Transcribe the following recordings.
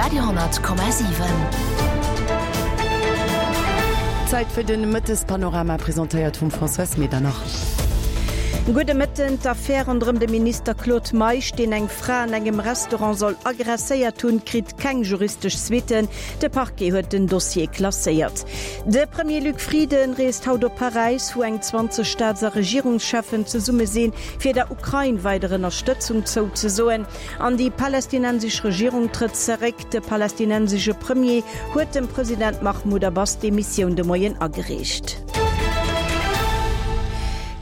Radio,7. Zäit fir den Mëttespanorama, presentéiert vum Françoise Medernach. Gudde Mëtten. D'Affär ronderëm de Minister Claude Meisch, deen eng Fra an engem Restaurant soll aggresséiert hunn, kritt keng juristesch Suitten. De Parquet huet den Dossier klasséiert. De Premier Luc Frieden reest haut op Paräis, wou eng 20 Staats a Regierungscheffen zesumme sinn, fir der Ukrain weider Ënnerstëtzung zouzesoen. An déi palästinensesch Regierung trëtt zeréck. De palästinensesche Premier huet dem President Mahmoud Abbas d'Demissioun de Moien agereecht.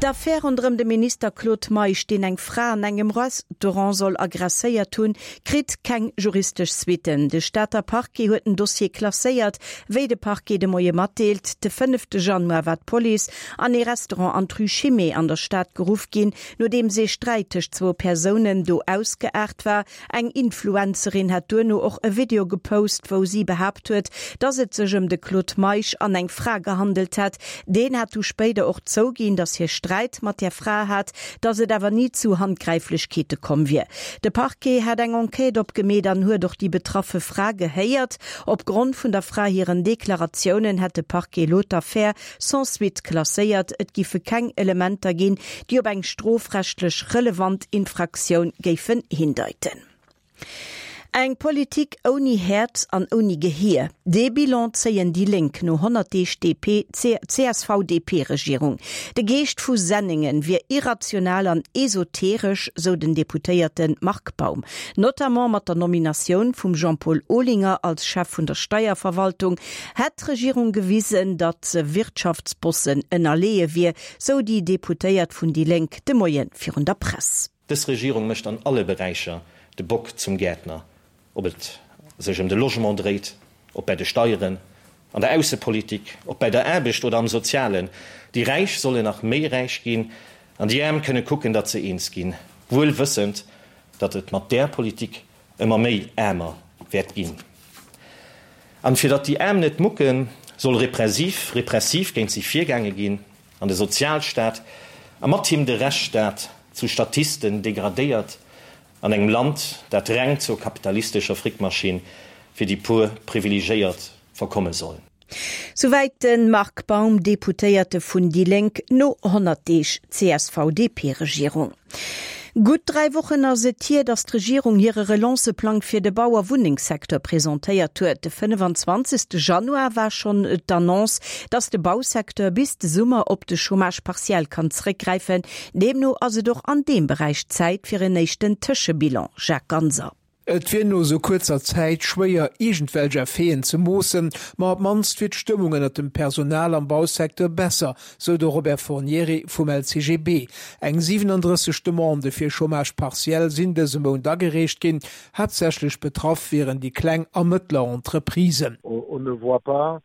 D'Affär ronderëm de Minister Claude Meisch, deen eng Fra an engem Restaurant soll aggresséiert hunn, kritt keng juristesch Suitten. De Stater Parquet huet den Dossier klasséiert, wéi de Parquet de Moie matdeelt. De fënnefte Januar war d'Police an ee Restaurant an d'Rue Chimay an der Stad geruff ginn, Nodeems ee Sträit tëscht zwou Persounen do ausgeaart war. Eng Influencerin hat duerno och e Video gepost, wou si behaapt huet, dass et sech ëm de Claude Meisch an eng Fra gehandelt hätt. Deen hat du spéider och zouginn, dass hie Sträit mat där Fra hat, dass et awer ni zu Handgräiflechkeete komm wier. De Parquet hat eng Enquête opgemeet an huet och déi betraffe Fra gehéiert. Op Grond vun der Fra hiren Deklaratiounen hätt de Parquet elo d'Affär sans suite klasséiert, et giffe keng Elementer ginn, déi op eng strofrechtlech relevant Infraktioun géifen hindeiten. Eng Politik ouni Häerz an ouni Gehier, dee Bilan zéien déi Lénk no 100 Deeg DP, CSV-DP-Regierung. De Geescht vu Senningen wier irrational an esoteresch, sou den Deputéierte Marc Baum. Notamment mat der Nominatioun vum Jean-Paul Olinger als Chef vun der Steierverwaltung Hätt d'Regierung gewisen, datt se Wirtschaftsbossen ënnerleeë wier, sou déi Deputéiert vun déi Lénk de Moie virun der Press. Dës Regierung mécht an alle Beräicher de Bock zum Gäertner, ob et sech ëm de Logement dréit, ob bäi de Steieren, an der Aussepolitik, ob bäi der Aarbecht oder am Sozialen. Déi Räich sollen nach méi räich ginn an déi Aarm kënne kucken, datt se eens ginn, wuel wëssend, datt et mat där Politik ëmmer méi aarmer wäert ginn. An fir datt déi Aarm net mucken, soll repressiv repressiv géint si virgaange ginn an de Sozialstaat a mat him de Rechtsstaat zu Statisten degradéiert an engem Land, dat reng zur kapitalistescher Frickmaschinn fir déi puer Privilegéiert verkomme soll. Souwäit de Marc Baum, Deputéierte vun déi Lénk, no 100 Deeg CSV-DP-Regierung. Gutt 3 Wochen ass et hier, datt d'Regierung hire Relance-Plang fir de Bau a Wunnengssecteur presentéiert huet. De 25. Januar war schonn d'Annonce, datt de Bausecteur bis de Summer op de Chômage partiel kann zeréckgräifen. Deemno ass et och an deem Beräich Zäit fir en éischten Tëschebilan. Jacques Ganser. Et wier no esou kuerzer Zäit schwéier, iergendwelch Effeten ze moossen, ma op d'mannst wier d'Stëmmung ënnert dem Personal am Bausecteur besser, sou de Robert Fornieri vum LCGB. Eng 37 Demandë fir Chômage partiel sinn dëse Mount agereecht ginn. Haaptsächlech betraff wieren déi kleng a mëttler Entreprisen. On ne voit pas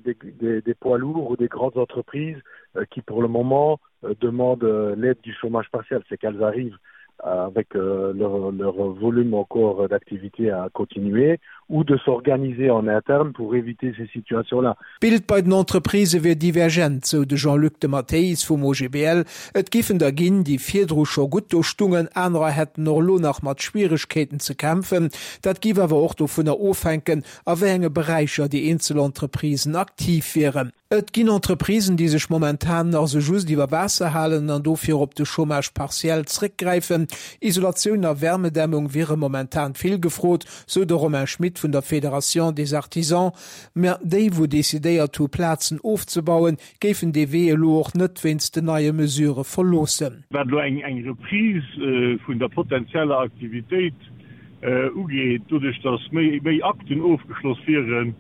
des, des, des poids lourds ou des grandes entreprises qui pour le moment demandent l'aide du chômage partiel c'est qu'elles arrivent avec leur, leur volume encore d'activité à continuer ou de s'organiser en interne pour éviter ces situations là. D'Bild bei den Entreprisë wier divergent, sou de Jean-Luc de Matteis vum OGBL. Et giffen der ginn, déi virdru scho gutt do stungen, anerer hätten och elo nach mat Schwieregkeeten ze kämpfen. Dat giff awer och dovunner ofhänken, a wéi enge Beräicher déi eenzel Entreprisen aktiv wieren. Et ginn Entreprisen, déi sech momentan nach sou just iwwer Waasser halen an dofir op de Chômage partiel zréckgräifen. Isolatioun a Wärmedämmung wiere momentan vill gefrot, sou de Romain Schmit vun der Fédération des Artisans. Mä déi, wou decidéiert hu Plazen ofzebauen, géifen dee Wee elo och net wéinst den neie Mesurë verloossen. Wat elo eng Reprise vun der potenzieller Aktivitéit ugeet, doduerch datt méi Akten ofgeschloss wieren,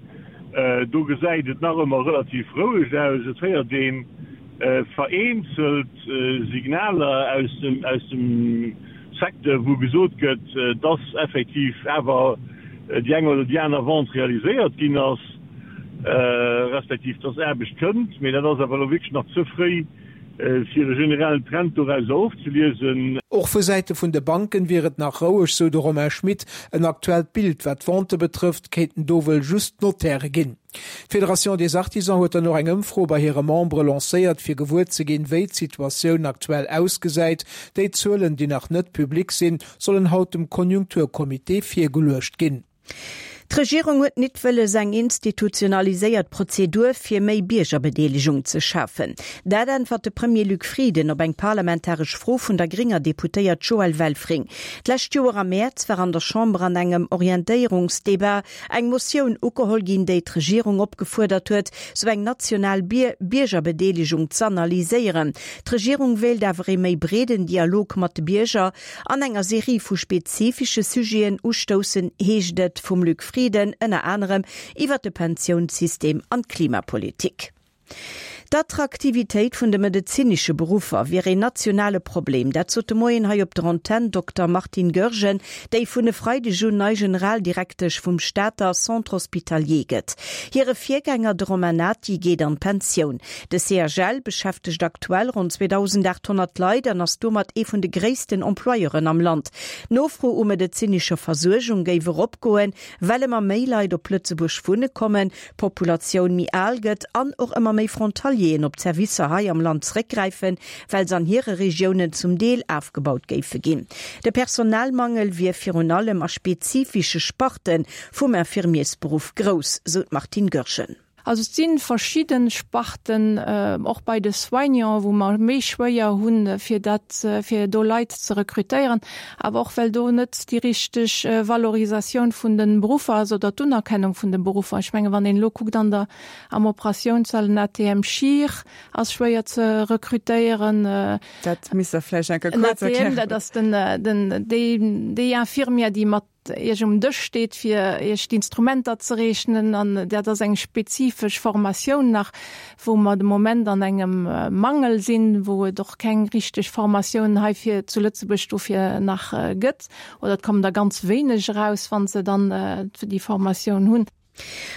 do gesäit et nach ëmmer relativ roueg aus. Et héiert ee vereenzelt Signaler aus dem Secteur, wou gesot gëtt, datt effektiv awer déi eng oder déi aner Vente realiséiert ginn ass, respektiv datt Aarbecht kënnt. Mee dat ass awer elo wierklech nach ze fréi, Fir e generellen Trend dorauser ofzeliesen. Och vu Säite vun de Banken wier et nach roueg, sou de Romain Schmit. En aktuellt Bild wat d'Vente betrëfft, kéinten do wuel just d'Notaire ginn. D'Fédération des Artisans huet dann och eng Ëmfro bei hire Membere lancéiert, fir gewuer ze ginn, wéi d'Situatioun aktuell ausgesäit. Déi Zuelen, déi nach net public sinn, sollen haut dem Konjunkturcomité virgeluecht ginn. D'Regierung huet nit wëlles eng institutionaliséiert Prozedur fir méi Biergerbedeelegung ze schafen. Dat äntwert de Premier Luc Frieden op eng parlamentaresch Fro vun der grénger Deputéiert Joëlle Welfring. D'lescht Joer am Mäerz war an der Chamber an engem Orientéierungsdebat eng Motioun ugeholl ginn, déi d'Regierung opgefuerdert huet, sou eng national Biergerbedeelegung z'analyséieren. D'Regierung wéilt awer ee méi breeden Dialog mat de Bierger An enger Serie vu spezifische Sujeten ustoussen, heescht et vum Luc Frieden, ënner anerem iwwer de Pensiounssystem an d'Klimapolitik. D'Attraktivitéit vun de medezinesche Beruffer wier een nationale Problem. Dat sot de Moien hei op der Antenn d'Dokter Martine Goergen, déi vun e Freideg un nei Generaldirektesch vum Stater Centre Hospitalier gëtt. Hire Virgänger, de Romain Nati, geet an d'Pensioun. De CHL beschäftegt aktuell ronn 2.800 Leit an ass domat ee vun de gréissten Employeuren am Land. D'Nofro u medezinescher Versuergung géif eropgoen, well ëmmer méi Leit op Lëtzebuerg wunne kommen, d'Populatioun méi al gëtt an och ëmmer méi Frontalieren op d'Servicer hei am Land zeréckgräifen, well se an hire Regiounen zum Deel afgebaut géife ginn. De Personalmangel wier virun allem a spezifische Sparte vum Infirmiersberuff grouss, sou d'Martine Goergen. Also et si verschidde Sparten, och bei de Soignants, wou mer méi schwéier hunn, fir dat, fir do Leit ze rekrutéieren, awer och well do net déi richteg Valorisatioun vun de Beruffer ass oder d'Unerkennung vun de Beruffer. Ech menge wann een elo kuckt an der, am Operatiounssall, en ATM-Chir ass schwéier ze rekrutéieren. Dat misst Der vläicht eng Kéier kuerz erklären. En ATM, dat ass den, den, déi, déi Infirmière, déi mat Iech um Dësch steet, fir Iech d'Instrumenter ze reechnen. An dat ass eng spezifesch Formatioun nach, wou mer de Moment an engem Mangel sinn, wou et och keng richteg Formatioun heifir zu Lëtzebuerg dofir nach gëtt. Oder et kommen der ganz wéineg eraus, wa se dann déi Formatioun hunn.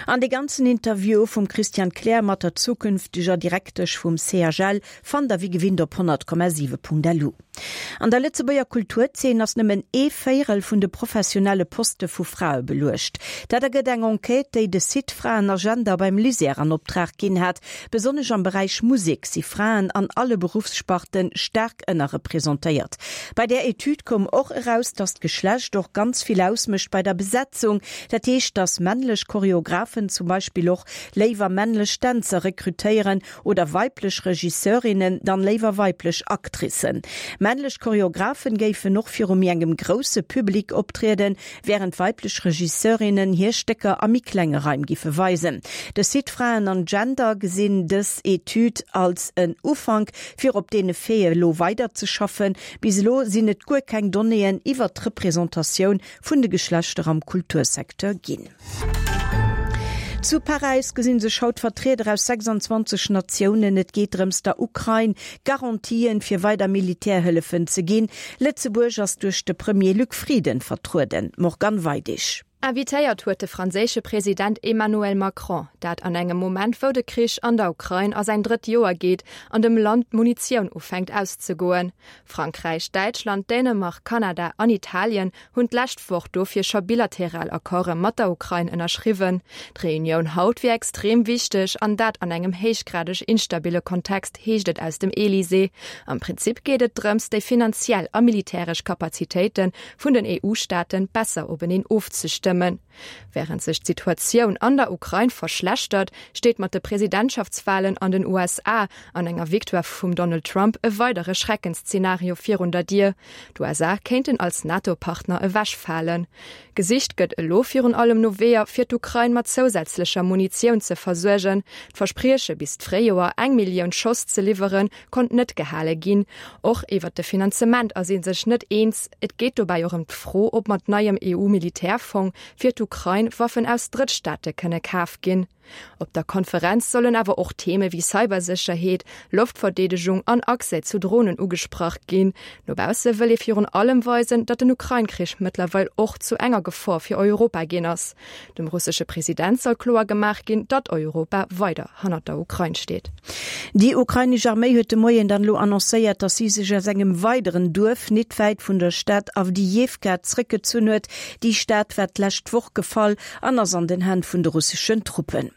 An dee ganzen Interview vum Christian Kleer mat der zukünfteger Direktesch vum CHL fannt der wéi gewinnt op 100,7.lu. An der Lëtzebuerger Kulturzeen ass nëmmen ee Véierel vun de professionelle Poste vu Frae beluecht. Dat ergëtt eng Enquête, déi de Site Fraenagenda beim LISER an Optrag ginn hat. Besonnesch am Beräich Musek si Fraen an alle Beruffssparten staark ënnerrepresentéiert. Bei där Etüd koum och eraus, datt d'Geschlecht och ganz vill ausmécht bei der Besetzung. Dat heescht, datt männlech Choreographen zum Beispill och léiwer männlech Dänzer rekrutéieren oder weiblech Regisseurinnen dann léiwer weiblech Actricen. Männlech Choreographen géifen och viru méi engem grousse Public optrieden, wärend weiblech Regisseurinnen hir Stécker a méi klenge Raim giffe weisen. De Site Fraen an Gender gesinn dës Etüd als en Ufank, fir op deene Faite elo weiderzeschaffen. Bis elo sinn et guer keng Donnéeën iwwert d'Representatioun vun de Geschlechter am Kultursecteur ginn. Zu Paräis gesinn sech haut Vertrieder aus 26 Natiounen. Et geet drëms der Ukrain Garantien fir weider Militärhëllefen ze ginn. Lëtzebuerg ass duerch de Premier Luc Frieden vertrueden. Morgane Weidig. Invitéiert huet de franséische President Emmanuel Macron, dat an engem Moment wou de Krich an der Ukrain a säin drëtt Joer geet an dem Land d'Munitioun ufänkt auszegoen. Frankräich, Däitschland, Dänemark, Kanada an Italien hunn d'lescht Woch dofir scho bilateral Accorde mat der Ukrain ënnerschriwwen. D'Reunioun haut wier extrem wichteg, an dat an engem héichgradeg instabille Kontext, heescht et aus dem Elysée. Am Prinzip geet et drëms, déi finanziell a militäresch Kapazitéite vun den EU-Staate besser openeen ofzestëmmen. Wärend sech d'Situatioun an der Ukrain verschlechtert, steet mat de Presidentschaftswalen an den USA an enger Victoire vum Donald Trump e weidere Schreckensszenario virun der Dier. D'USA kéinten als NATO-Partner ewechfalen. Gesicht gëtt elo virun allem no Weeër, fir d'Ukrain mat zousätzlecher Munitioun ze versuergen. D'Versprieche bis d'Fréijoer eng Millioun Schoss ze liwweren, konnt net gehale ginn. Och iwwert de Finanzement ass ee sech net eens. Et geet dobäi och ëm d'Fro, ob mat neiem EU-Militärfong fir d'Ukrain Waffen aus Drëttstaate kënne kaf ginn. Op der Konferenz sollen awer och Theme wéi Cybersécherheet, Loftverdeedegung an Accès zu Dronen ugesprach ginn. No bausse wëll ee virun allem weisen, datt den Ukrain-Krich mëttlerweil och zu enger Gefor fir Europa ginn ass. Dem russesche President soll kloer gemaach ginn, datt Europa weider hannert der Ukrain steet. Déi ukrainesch Arméi huet de Moien dann elo annoncéiert, datt si sech aus engem weideren Duerf nit wäit vun der Stad Awdijiwka zréckgezunn huet. Déi Stad war d'lescht Woch gefall an ass an den Hänn vun de russeschen Truppen.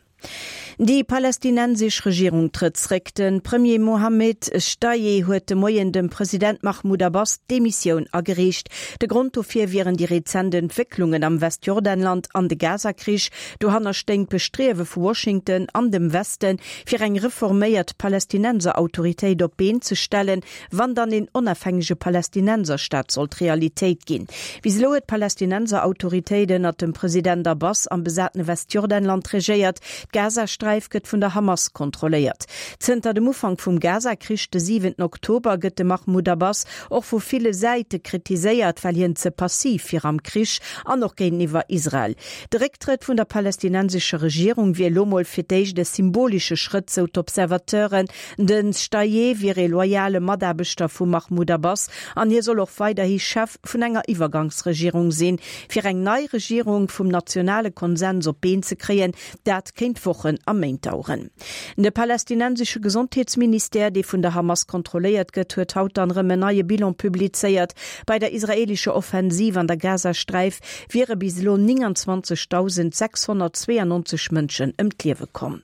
Déi palästinensesch Regierung trëtt zréck. De Premier Mohammed Shtayyeh huet de Moien dem President Mahmoud Abbas d'Demissioun agereecht. De Grond dofir wieren déi rezent Entwécklungen am Westjordanland an de Gaza-Krich. Dohanner stéing d'Bestriewe vu Washington an dem Westen, fir eng reforméiert Palästinenserautoritéit op d'Been ze stellen, Wann dann een onafhängege Palästinenserstaat sollt Realitéit ginn. Bis elo huet d'Palästinenserautoritéit ënnert dem President Abbas am besatene Westjordanland regéiert. D'Gazasträif gëtt vun der Hamas kontrolléiert. Zënter dem Ufank vum Gaza-Krich de siwenten Oktober gëtt de Mahmoud Abbas och vu ville Säite kritiséiert, well hien ze passiv wier am Krich an och géinteniwwer Israel. De Récktrëtt vun der palästinensescher Regierung wier elo mol fir d'éischt e symbolesche Schrëtt, sou d'Observateuren. Den Shtayyeh wier ee loyale Mataarbechter vum Mahmoud Abbas an hie soll och weiderhi Chef vun enger Iwwergangsregierung sinn. Fir eng nei Regierung vum nationale Konsens op d'Been ze kréien, dat kéint Wochen a Méint daueren. De palästinensesche Gesondheetsministère, dee vun der Hamas kontrolléiert gëtt, huet haut dann erëm en neie Bilan publizéiert. Bei der israeelescher Offensiv an der Gazasträif wiere bis elo 29.692 Mënschen ëm d'Liewe komm.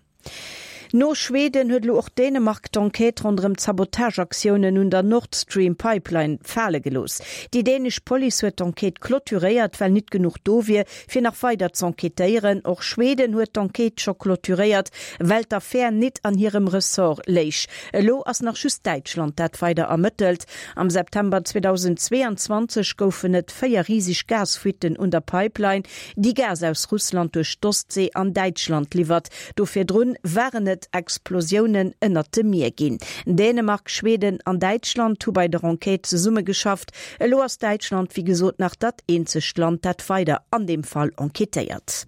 No Schweden huet elo och Dänemark d'Enquête ronderëm d'Sabotageaktiounen un der Nord Stream Pipeline fale gelooss. Déi dänesch Police huet d'Enquête clôturéiert, well nit genuch do wier, fir nach weider z'enquêtéieren. Och Schweden huet d'Enquête scho clôturéiert, well d'Affär nit an hirem Ressort léich. Elo ass nach just Däitschland, dat weider ermëttelt. Am September 2022 goufen et 4 riseg Gasfuitten un der Pipeline, déi Gas aus Russland duerch d'Ostsee an Däitschland liwwert. Do virdrun waren et Explosiounen ënnert dem Mier ginn. Dänemark, Schweden an Däitschland hu bei der Enquête zesummegeschafft. Elo ass Däitschland wéi gesot nach dat eenzegt Land, dat weider an deem Fall enquêtéiert.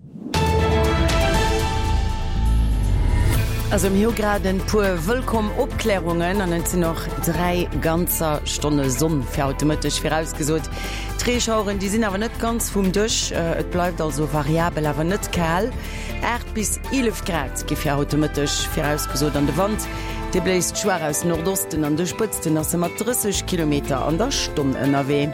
Also mir hu grad en puer wëllkomm Opklärungen an et sinn och 3 ganzer Stonne Sonn fir haut de Mëtteg virausgesot. D'Reeschaueren, déi sinn awer net ganz vum Dësch, et bleift also variabel, awer net kal. 8 bis 11 Grad gi fir haut de Mëtteg virausgesot an de Wand, dee bléist schwaach aus Nordosten, an de Spëtzten ass e mat 30 Kilometer an der Stonn ënnerwee.